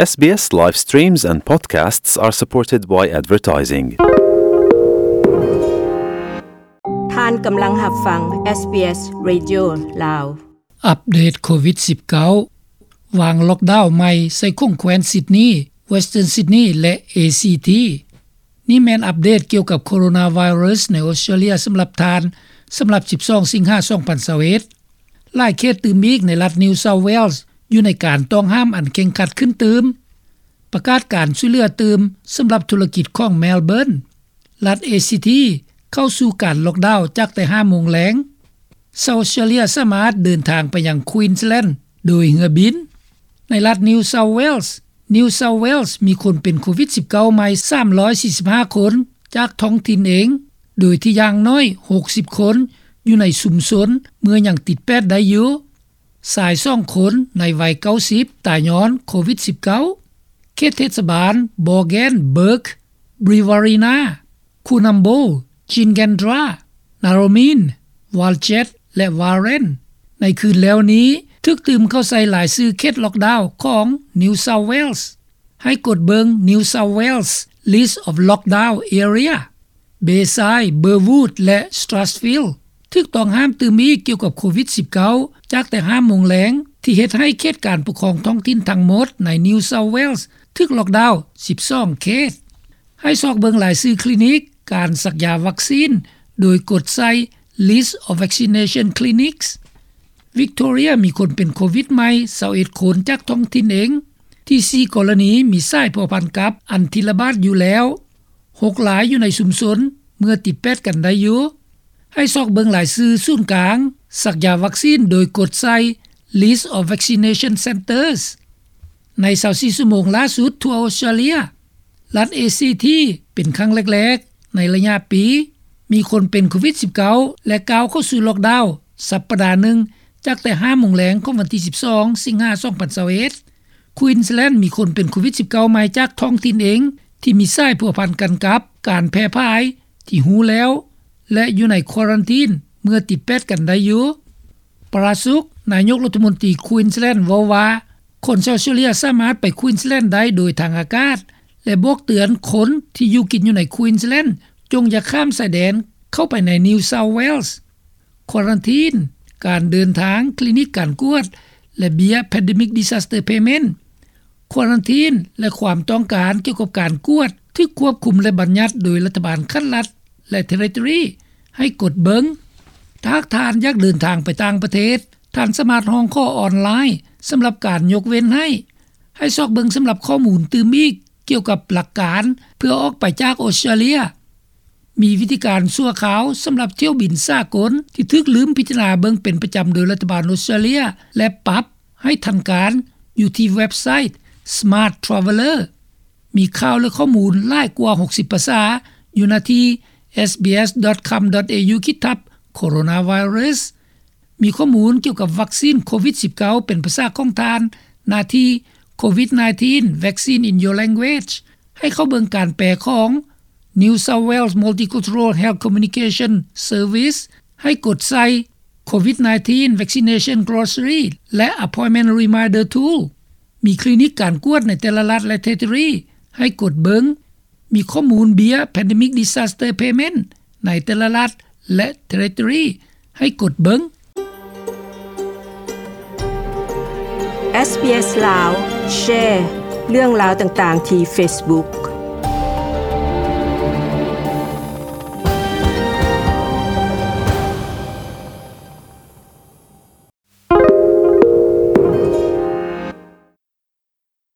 SBS live streams and podcasts are supported by advertising. ທ່ານກຳລັງຮັບຟັງ SBS Radio ລາວ. ອັບເດດໂຄວິດສິບເກົ້າ ວາງລັອກດາວໃໝ່ໃສ່ຂົງແຄວ້ນຊິດນີ, Western Sydney ແລະ ACT. ນີ້ແມ່ນອັບເດດກ່ຽວກັບໂຄໂຣນາໄວຣັສໃນອອສເຕຣເລຍສຳລັບທ່ານ ສຳລັບສິບສອງສິງຫາສອງພັນຊາວເອັດ. ຫຼາຍເຂດຕື່ມອີກໃນລັດ New South Wales ຢູ່ໃນການຕ້ອງຫ້າມອັນເຄັ່ງຄັດຂຶ້ນຕື່ມ, ປະກາດການຊ່ວຍເຫຼືອຕື່ມສຳລັບທຸລະກິດຂອງ Melbourne. ລັດ ACT ເຂົ້າສູ່ການລັອກດາວຈາກແຕ່ຫ້າໂມງແລງ. ຊາວອອສເຕຣເລຍສາມາດເດີນທາງໄປຍັງ Queensland ໂດຍເຮືອບິນ. ໃນລັດ New South Wales, New South Wales ມີຄົນເປັນໂຄວິດສິບເກົ້າໃໝ່ສາມຮ້ອຍສີ່ສິບຫ້າຄົນຈາກທ້ອງຖິ່ນເອງ, ໂດຍທີ່ຢ່າງໜ້ອຍຫົກສິບຄົນຢູ່ໃນຊຸມຊົນເມື່ອຍັງຕິດແປດໄດ້ຢູ່. ຊາຍສອງຄົນໃນໄວເກົ້າສິບຕາຍຍ້ອນໂຄວິດສິບເກົ້າ. ເຂດເທດສະບານ Boggenburg, Brewarrina, Coonamble, Gingendra, Narromine, Walgett ແລະ Warren ໃນຄືນແລ້ວນີ້ຖືກຕື່ມເຂົ້າໃສ່ລາຍຊື່ເຂດລັອກດາວຂອງ New South Wales. ໃຫ້ກົດເບິ່ງ New South Wales List of Lockdown Area. Bayside, Burwood ແລະ Strathfield ຖືກຕ້ອງຫ້າມຕື່ມອີກກ່ຽວກັບໂຄວິດສິບເກົ້າ ຈາກແຕ່ຫ້າໂມງແລງ ທີ່ເຮັດໃຫ້ເຂດການປົກຄອງທ້ອງຖິ່ນທັງໝົດໃນ New South Wales ຖືກລັອກດາວສິບສອງເຂດ. ໃຫ້ຊອກເບິ່ງລາຍຊື່ຄລີນິກການສັກຢາວັກຊີນ ໂດຍກົດໃສ່ List of Vaccination Clinics. Victoria ມີຄົນເປັນໂຄວິດໃໝ່ຊາວເອັດຄົນຈາກທ້ອງຖິ່ນເອງ, ທີ່ສີ່ກໍລະນີມີສາຍພົວພັນກັບອັນທີ່ລະບາດຢູ່ແລ້ວ, ຫົກລາຍຢູ່ໃນຊຸມຊົນເມື່ອຕິດແປດກັນໄດ້ຢູ່. ໃຫ້ຊອກເບິ່ງລາຍຊື່ສູນກາງສັກຢາວັກຊີນໂດຍກົດໃສ່ List of Vaccination Centres. ໃນຊາວສີ່ຊົ່ວໂມງລ່າສຸດທົ່ວອອສເຕຣເລຍ, ລັດ ACT ເປັນຄັ້ງແລກໆໃນໄລຍະປີ ມີຄົນເປັນໂຄວິດສິບເກົ້າ ແລະ ກ້າວເຂົ້າສູ່ລັອກດາວສັບປະດາໜຶ່ງ ຈາກແຕ່ຫ້າໂມງແລງຂອງວັນທີສິບສອງສິງຫາສອງພັນຊາວເອັດ. Queensland ມີຄົນເປັນໂຄວິດສິບເກົ້າໃໝ່ຈາກທ້ອງຖິ່ນເອງ ທີ່ມີສາຍພົວພັນກັນກັບການແຜ່ຜາຍທີ່ຮູ້ແລ້ວ ແລະ ຢູ່ໃນຄວາຣັນທີນເມື່ອຕິດແປດກັນໄດ້ຢູ່. Prasuk, ນາຍົກລັດຖະມົນຕີ Queensland ເວົ້າວ່າ ຄົນຊາວອອສເຕຣເລຍສາມາດໄປ Queensland ໄດ້ໂດຍທາງອາກາດ ແລະ ບອກເຕືອນຄົນທີ່ຢູ່ກິນຢູ່ໃນ Queensland ຈົ່ງຢ່າຂ້າມຊາຍແດນເຂົ້າໄປໃນ New South Wales. ຄວາຣັນທີນ, ການເດີນທາງ, ຄລີນິກການກວດ ແລະ ເບ້ຍ Pandemic Disaster Payment. ຄວາຣັນທີນ ແລະ ຄວາມຕ້ອງການກ່ຽວກັບການກວດຖືກຄວບຄຸມ ແລະ ບັນຍັດໂດຍລັດຖະບານຂັ້ນລັດ ແລະ ເທຣິທອຣີ ໃຫ້ກົດເບິ່ງ. ຖ້າຫາກທ່ານຢາກເດີນທາງໄປຕ່າງປະເທດ, ທ່ານສາມາດຮ້ອງຂໍອອນລາຍສຳລັບການຍົກເວັ້ນໃຫ້. ໃຫ້ຊອກເບິ່ງສຳລັບຂໍ້ມູນຕື່ມອີກກ່ຽວກັບຫຼັກການເພື່ອອອກໄປຈາກອອສເຕຣເລຍ. ມີວິທີການຊົ່ວຄາວສຳລັບຖ້ຽວບິນສາກົນທີ່ຖືກລືມພິຈາລະນາເບິ່ງເປັນປະຈຳໂດຍລັດຖະບານອອສເຕຣເລຍ ແລະ ປັບໃຫ້ທັນການຢູ່ທີ່ເວັບໄຊ Smart Traveller. ມີຂ່າວ ແລະ ຂໍ້ມູນຫຼາຍກວ່າຫົກສິບພາສາຢູ່ໜ້າທີ່ SBS dot com dot au ຂີດທັບ Coronavirus. ມີຂໍ້ມູນກ່ຽວກັບວັກຊີນໂຄວິດສິບເກົ້າເປັນພາສາຂອງທ່ານ ໜ້າທີ່ COVID nineteen Vaccine in Your Language. ໃຫ້ເຂົ້າເບິ່ງການແປຂອງ New South Wales Multicultural Health Communication Service. ໃຫ້ກົດໃສ່ COVID nineteen Vaccination Glossary ແລະ Appointment Reminder Tool. ມີຄລີນິກການກວດໃນແຕ່ລະລັດ ແລະ ເທຣິທອຣີ ໃຫ້ກົດເບິ່ງ. ມີຂໍ້ມູນເບ້ຍ Pandemic Disaster Payment ໃນແຕ່ລະລັດ ແລະ ເທຣິທອຣີ ໃຫ້ກົດເບິ່ງ. SBS ລາວ ແຊເລື່ອງລາວຕ່າງໆທີ່ Facebook.